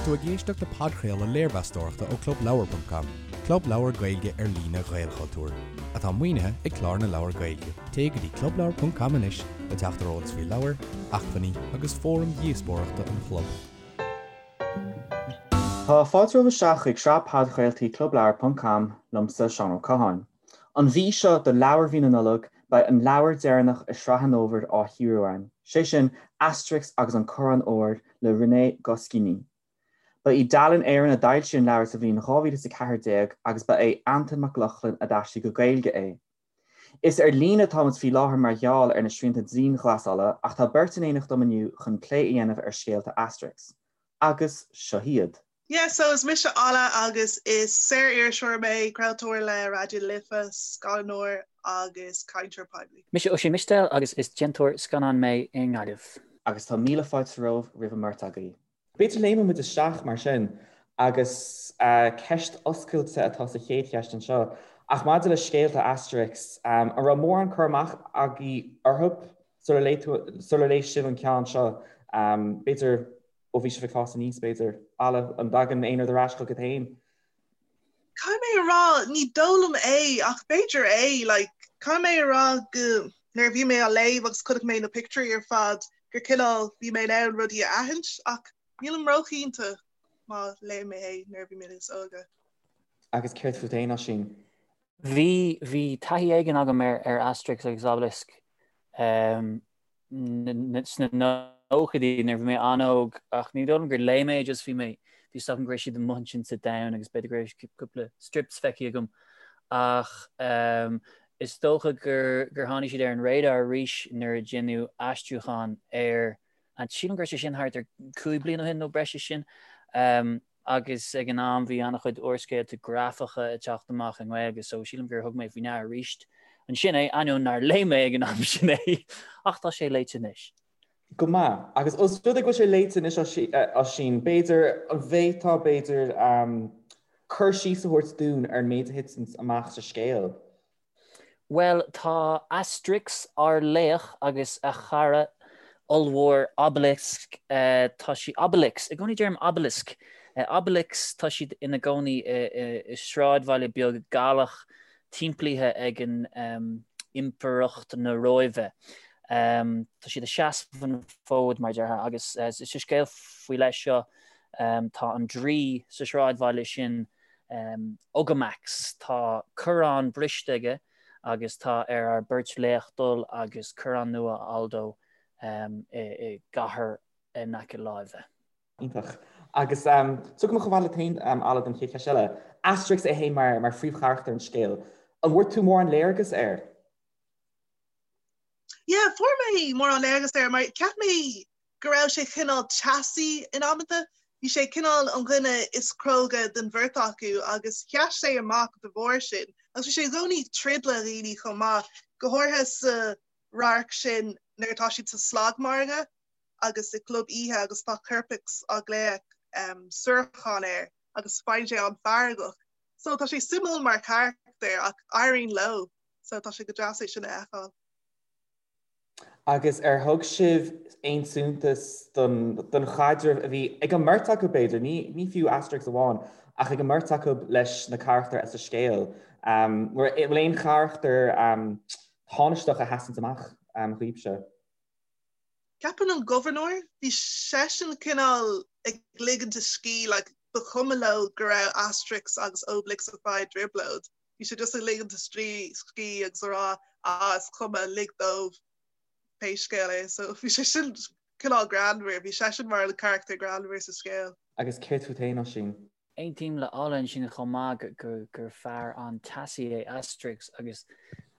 Tá tú ag éisteacht le podchraoladh léirmheastóireachta ó ClubLeabhar.com, club leabhar Gaeilge ar líne Ghaelchultúir, atá maoinithe ag Clár na Leabhar Gaeilge. Téigh go dtí clubleabhar.com anois le teacht ar eolas faoi leabhair, acmhainní agus fóraim dhíospóireachta an chlub. Tá fáilte romhaibh isteach chuig sraith podchraoltaí ClubLeabhar.com liomsa, Seán Ó Catháin. An mhí seo do leabhar mhí na Nollag, beidh an leabhar deireanach i sraith an fhómhair á chíoradh againn, sé sin Asterix agus an Corrán Óir le René Goscinny. Ba í Dalen Éireann a d'fhoilsigh an leabhar sa bhliain 2014 agus ba é Antain Mac Lochlainn a d'aistrigh go Gaeilge é. Is ar líne atáimid faoi láthair mar gheall ar na srianta dianghlasála ach tá beirt in éineacht dom inniu chun plé a dhéanamh ar scéalta Asterix. Agus seo iad. Yeah, so is mise Ola agus is saor-iriseoir mé, craoltóir le Raidió na Life, scannánóir agus cainteoir poiblí. Mise Oisín Mistéil agus is déantóir scannán mé i nGaillimh. Agus tá míle fáilte romhaibh roimh an mbeirt agaibh. B'fhéidir léimfidh muid isteach mar sin agus ceist oscailte atá sa chéad cheist anseo, ach maidir le scéalta Asterix, an raibh mórán cur amach agaibh orthu sular léigh tú, sular léigh sibh an ceann seo? B'fhéidir ó bhí sibh ag fás aníos, b'fhéidir. Ola, an dtagann aon rud ar ais chugat féin? Caithfidh mé a rá, ní dóigh liom é, ach b'fhéidir é, like, caithfidh mé a rá go, nuair a bhí mé á léamh agus chonaic mé na pictiúirí ar fad, gur cineál, bhí mé in ann rudaí a aithint, ach nílim róchinnte má léigh mé é nuair a bhí mé níos óige. Agus céard fút féin, Oisín? Bhí, bhí taithí éigin agam ar, ar Asterix agus Obelix. Um, sna nóchaidí nuair a bhí mé an-óg ach ní dóigh liom gur léigh mé just bhí mé bhí a fhios agam go raibh siad amuigh ansin sa domhan agus b'fhéidir go raibh cúpla strips feicthe agam ach um, is dócha gur gur tháinig siad ar an radar arís nuair a deineadh aistriúchán air and sílim go raibh sé sin thart ar 5 bliana ó shin nó breis is sin. Um, agus ag an am bhí an-chuid úrscéalta grafacha ag teacht amach i nGaeilge so sílim gur thug mé faoi ndeara arís ansin é, ainneoin nár léigh mé ag an am sin é, ach tá sé léite anois. Go maith. Agus os rud é go bhfuil sé léite anois Oisín, b'fhéidir, an bhféadfá b'fhéidir cur síos a thabhairt dúinn ar an méid a thiteann amach sa scéal? Bhuel, tá Asterix, ár laoch, agus a chara ollmhór Obelix, tá sí, Obelix, i gcónaí deirim Obelisk, Obelix, tá siad ina gcónaí i sráidbhaile beag Gallach timplithe ag an Impireacht na Róimhe. Tá siad ag seasamh an fód, mar a déarfá, agus sa scéal faoi leith seo, tá an draoi sa sráidbhaile sin, Ogamax, tá corrán briste aige agus tá ar ár beirt laoch dul agus corrán nua a fháil dó i gcathair in aice láimhe. Iontach. Agus tiocfaidh mé chomh fada leat féin, Ola, don chéad cheist eile. Asterix é féin mar phríomhcharachtar an scéil. An bhfuair tú mórán léargas air? Yeah, fuair mé mórán léargas air mar cheap mé go raibh sé cineál teasaí in amanta. Bhí sé cineál an dhuine is cróga den bheirt acu agus sheas sé amach de bharr sin. Agus bhí sé i gcónaí ag troid le dhaoine chomh maith, go háirithe sa radharc sin nuair atá siad sa slagmhargadh agus i gclub oíche agus tá Kerpix á ghlaoch suarachán air agus faigheann sé an-fheargach. So tá sé suimiúil mar charachtar ach éiríonn leo so tá sé go deas é sin a fheiceáil. Agus ar thug sibh aon suntas don chaidreamh a bhí ag an mbeirt acu, b'fhéidir, ní fiú Asterix amháin, ach ag an mbeirt acu leis na carachtair sa scéal? An bhfuil aon charachtar tánaisteach a sheasann amach dhaoibhse? Ceapaim an gobharnóir, bhí seisean cineál ag ligint a scíth, like, ba chuma leo go raibh Asterix agus Obelix ag fáil trioblóid. Bhí sé just ag ligint a scíth agus a rá ah is cuma, lig dóibh pé scéal é. So bhí sé sin cineál greannmhar, bhí seisean mar an carachtar greannmhar sa scéal. Agus céard fút féin, Oisín? Aontaím le Ola ansin chomh maith gur fear an-teasaí é Asterix agus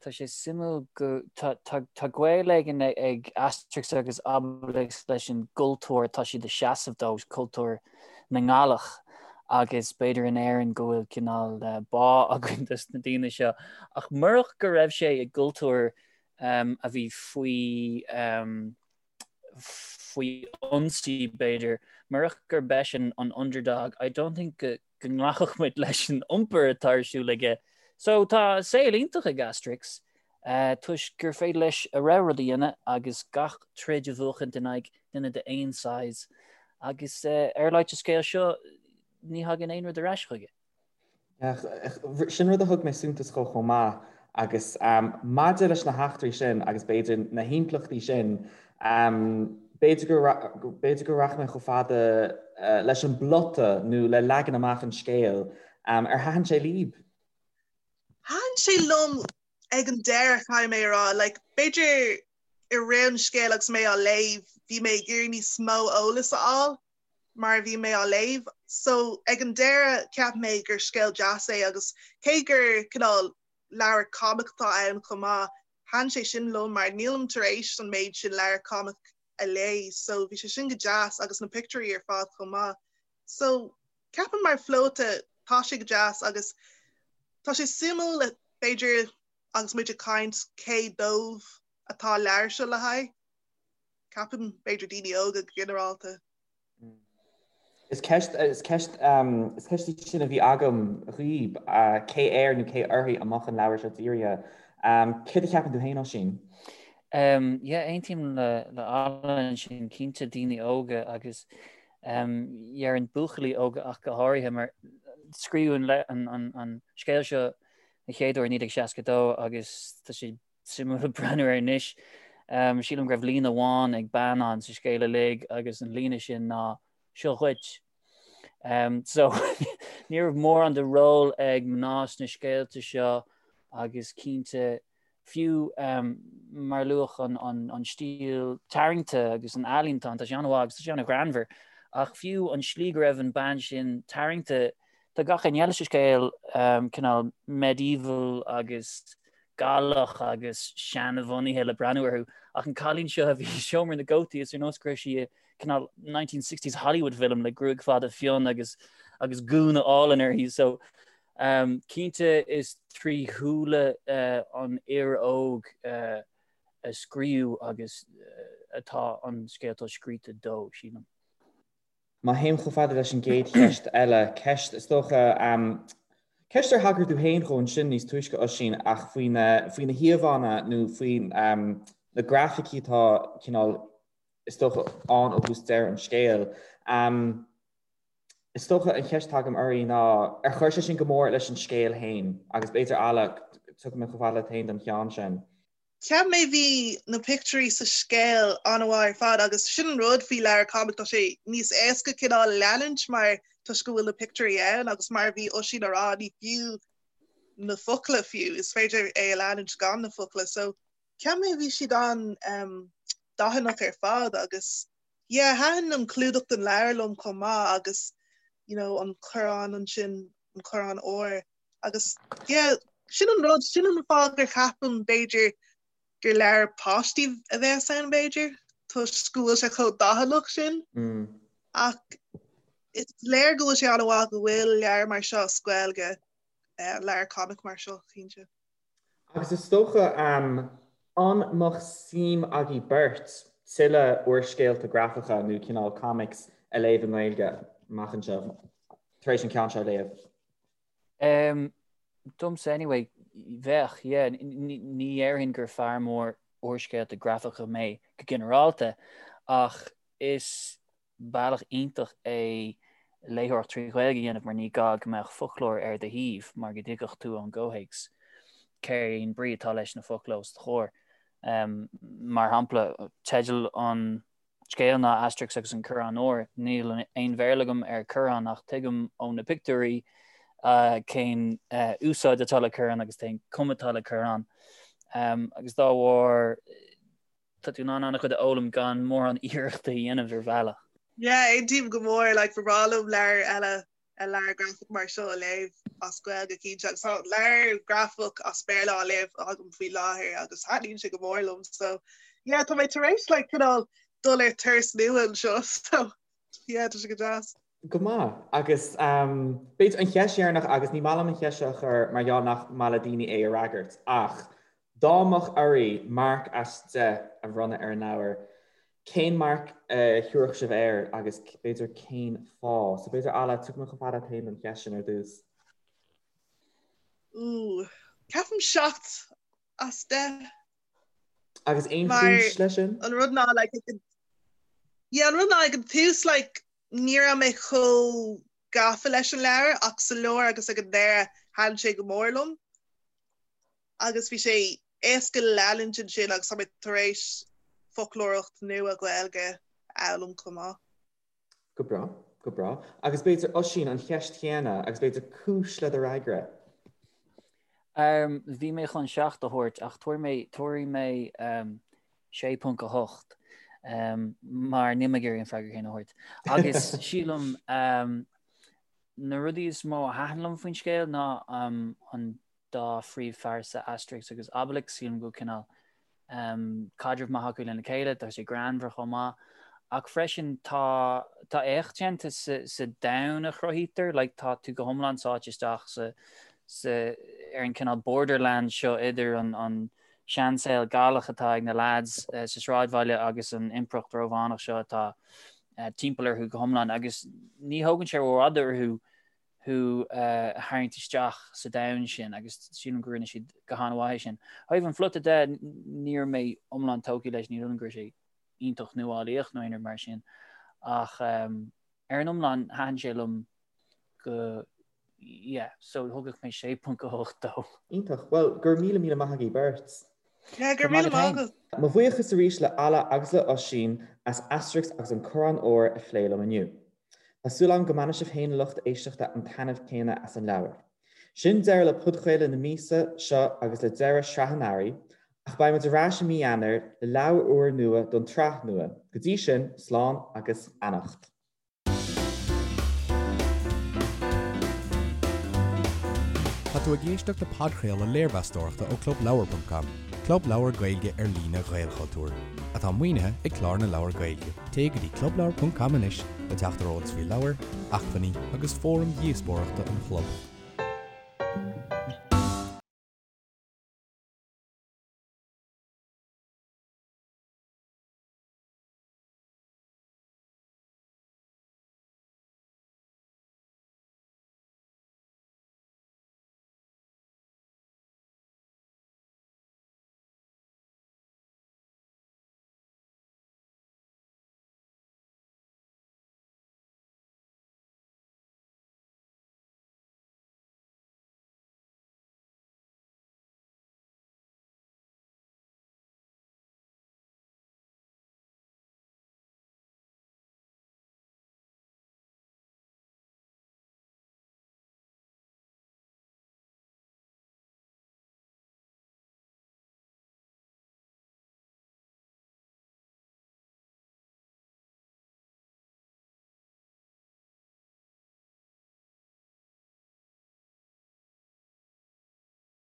tá sé suimiúil go tá gaol éigin ag Asterix agus Obelix leis an gcultúr atá siad ag seasamh dó, cultúr na nGallach agus b'fhéidir in Éirinn go bhfuil cineál bá againn dos na daoine seo. Ach murach go raibh sé i gcultúr a bhí faoi faoi ionsaí b'fhéidir, murach gurb eisean an underdog, I don't think go go nglacfadh muid leis an iompar atá ar siúl aige. So tá saol iontach ag Asterix toisc gur féidir leis a rogha rud a dhéanamh agus gach troid a bhuachaint in aghaidh duine d'aon size. Agus ar a laghad sa scéal seo, ní thagann aon rud ar ais chuige. Sin rud a thug mé suntas dhó chomh maith agus maidir leis na heachtraí sin agus b'fhéidir na himpleachtaí sin, b'fhéidir go b'fhéidir go rachaidh mé chomh fada leis an bplota nó le leagan amach an scéil. Ar thaitin sé libh? Thaitin sé liom ag an deireadh, caithfidh mé a rá. Like, b'fhéidir i rith an scéil agus mé á léamh, bhí mé ag iarraidh níos mó eolas a fháil mar a bhí mé á léamh. So, ag an deireadh, cheap mé gur scéal deas é agus cé gur cineál leabhar comic atá ann chomh maith, thaitin sé sin liom mar nílim tar éis an méid sin leabhar comic a léamh so bhí sé sin go deas agus na pictiúirí ar fad chomh maith. So, ceapaim mar phlota tá sé go deas agus tá sé suimiúil b'fhéidir agus muid ag caint cé dóibh atá an leabhar seo le haghaidh. Ceapaim b'fhéidir daoine óga go ginearálta. Is ceist is ceist is ceist í sin a bhí agam dhaoib, cé air nó cé uirthi a mbeadh an leabhar seo dírithe. Céard a cheapann tú féin, Oisín? Yeah, aontaím le le Alan ansin, cinnte daoine óga agus déarfainn buachaillí óga ach go háirithe mar scríobhadh an an an scéal seo an chéad uair i 1962 agus tá sé suimiúil breathnú air anois. Sílim go raibh líne amháin ag bean ann sa scéal uilig agus an líne sin ná 'Seo dhuit'. So ní raibh mórán de ról ag mná sna scéalta seo agus cinnte fiú mar luadh an stíl tarraingte agus an ealaín atá ann, tá sé an-mhaith agus tá sé an-ghreannmhar ach fiú an slí go raibh an bean sin tarraingte, tá gach éinne eile sa scéal cineál medieval agus Gallach agus seanbhunaithe le breathnú orthu, ach an cailín seo a bhí i seomra na gcótaí, is ar nós go raibh sí i cineál 1960s Hollywood film le gruaig fada fionn agus agus gúna álainn uirthi. So um, cinnte is trí shúile uh, an fhir óg uh, a scríobhadh agus uh, atá an scéal atá scríte dó, sílim. Má théim chomh fada leis an gcéad cheist eile, ceist, is dócha, ceist ar thagair tú féin dhó ansin níos túisce, Oisín, ach faoi na, faoi na híomhánna nó faoi na grafaicí atá cineál, is dócha, ann ó thús deireadh an scéil. Is dócha an cheist atá agam oraibh ná, ar chuir sé sin go mór leis an scéal féin? Agus b'fhéidir, Ala, tiocfaidh mé chomh fada leat féin don cheann sin. Cheap mé bhí na pictiúirí sa scéal an-mhaith ar fad agus sin an rud faoi leabhar comic tá sé níos éasca cineál leanúint mar toisc go bhfuil na pictiúirí ann agus mar a bhí Oisín a rá ní fiú na focla fiú is féidir é a leanúint gan na focla so cheap mé bhí siad an um, dathannach ar fad agus yeah thaitin an clúdach den leabhar liom chomh maith agus you know an corrán ansin an corrán óir Agus yeah, sin an rud, sin an fáth gur cheapaim b'fhéidir gur leabhar páistí a bheas ann b'fhéidir, toisc go bhfuil sé chomh dathannach sin. Mm. Ach is léir go bhfuil sé an-mhaith go bhfuil leabhar mar seo as Gaeilge, eh, leabhar comic mar seo, cinnte. Agus is dócha, an mbeadh suim agaibh beirt tuilleadh úrscéalta grafacha nó cineál comics a léamh i nGaeilge amach anseo, tar éis an ceann seo a léamh? Domsa anyway, bheadh, yeah. Ní dhéarfainn gur fear mór úrscéalta grafacha mé go ginearálta, ach is bealach iontach é léitheoireacht trí Ghaeilge a dhéanamh mar ní gá go mbeadh foclóir ar do thaobh mar go dtuigfeadh tú ón gcomhthéacs cén brí atá leis na focla os do chomhair. Mar shampla, teideal an scéil ná Asterix agus an Corrán Óir. Níl aon Bhéarla agam ar corrán ach tuigim ó na pictiúirí cén úsáid atá le corrán agus cén cuma atá le corrán. Agus dá bharr tá tú in ann an-chuid a fhoghlaim gan mórán iarrachta a dhéanamh ar bhealach. Yeah, aontaím go mór, like ba bhreá liom leabhar eile a leabhar grafach mar seo a léamh as Gaeilge cinnte agus tá leabhar grafach as Béarla á léamh agam faoi láthair agus thaitníonn sé go mór liom so yeah tá mé tar éis like cineál dul ar turas nua anseo so yeah tá sé go deas. Go maith. Agus b'fhéidir an cheist dheireanach agus ní maith liom an cheist seo a chur mar gheall nach maith le daoine é a fhreagairt ach dá mbeadh oraibh marc as 10 a bhronnadh ar an leabhar, Cén marc a thabharfadh sibh air agus b'fhéidir cén fáth? So b'fhéidir Ala, tiocfaidh mé chomh fada leat féin don cheist sin ar dtús. Ooh, ceapaim 7 as 10. Agus aon chúis leis sin? An rud ná like, yeah, an rud ná ag an tús like, Ní raibh mé chomh gafa leis an leabhar ach sa lár agus ag an deireadh thaitin sé go mór liom agus bhí sé éasca le leanúint ansin agus tá mé tar éis foclóireacht nua Ghaeilge a fhoghlaim chomh maith. Go breá, go breá. Agus b'fhéidir Oisín, an cheist chéanna agus b'fhéidir cúis le do fhreagra. Bhí mé chun 7 a thabhairt ach tabharfaidh mé, tabharfaidh mé 6.8 mar níl mé ag iarraidh an freagra céanna a thabhairt. Agus sílim na rudaí is mó a thaitin liom faoin scéal ná an dá phríomhphearsa Asterix agus Obelix, sílim go bhfuil cineál caidreamh maith acu lena chéile, tá sé greannmhar chomh maith. Ach freisin tá tá éacht déanta sa sa domhan a chruthaítear, like tá tú go hiomlán sáite isteach sa sa ar an cineál borderland seo idir an an seansaol Gallach atá ag na lads sa sráidbhaile agus an impireacht Rómhánach seo atá timpeall orthu go hiomlán agus ní thógann sé rófhada orthu thú a tharraingt isteach sa domhan sin agus sílim go rinne siad go han-mhaith é sin. Ó thaobh an phlota de, ní raibh mé iomlán tógtha leis, ní shílim go raibh sé iontach nuálaíoch nó aon rud mar sin ach ar an iomlán thaitin sé liom go yeah, so thugadh mé 6.8 dó. Iontach. Bhuel, go raibh míle míle maith agaibh beirt. Yeah, go raibh míle maith agat. Mo bhuíochas arís le Alla agus le Oisín as Asterix agus an Corrán Óir a phlé liom inniu. Tá súil agam go mbainfidh sibh féin a lucht éisteachta an taitneamh céanna as an leabhar. Sin deireadh le podchraoladh na míosa seo agus le deireadh sraith an Earraigh, ach beidh muid ar ais i mí Eanáir le leabhar úr nua don tsraith nua. Go dtí sin, slán agus beannacht. Tá tú ag éisteacht le podchraoladh léirmheastóireachta ó ClubLeabhar.com, club leabhar Gaeilge ar líne Ghaelchultúir, atá maoinithe ag Clár na Leabhar Gaeilge. Téigh go dtí clubleabhar.com anois le teacht ar eolas faoi leabhair, acmhainní agus fóraim dhíospóireachta an chlub.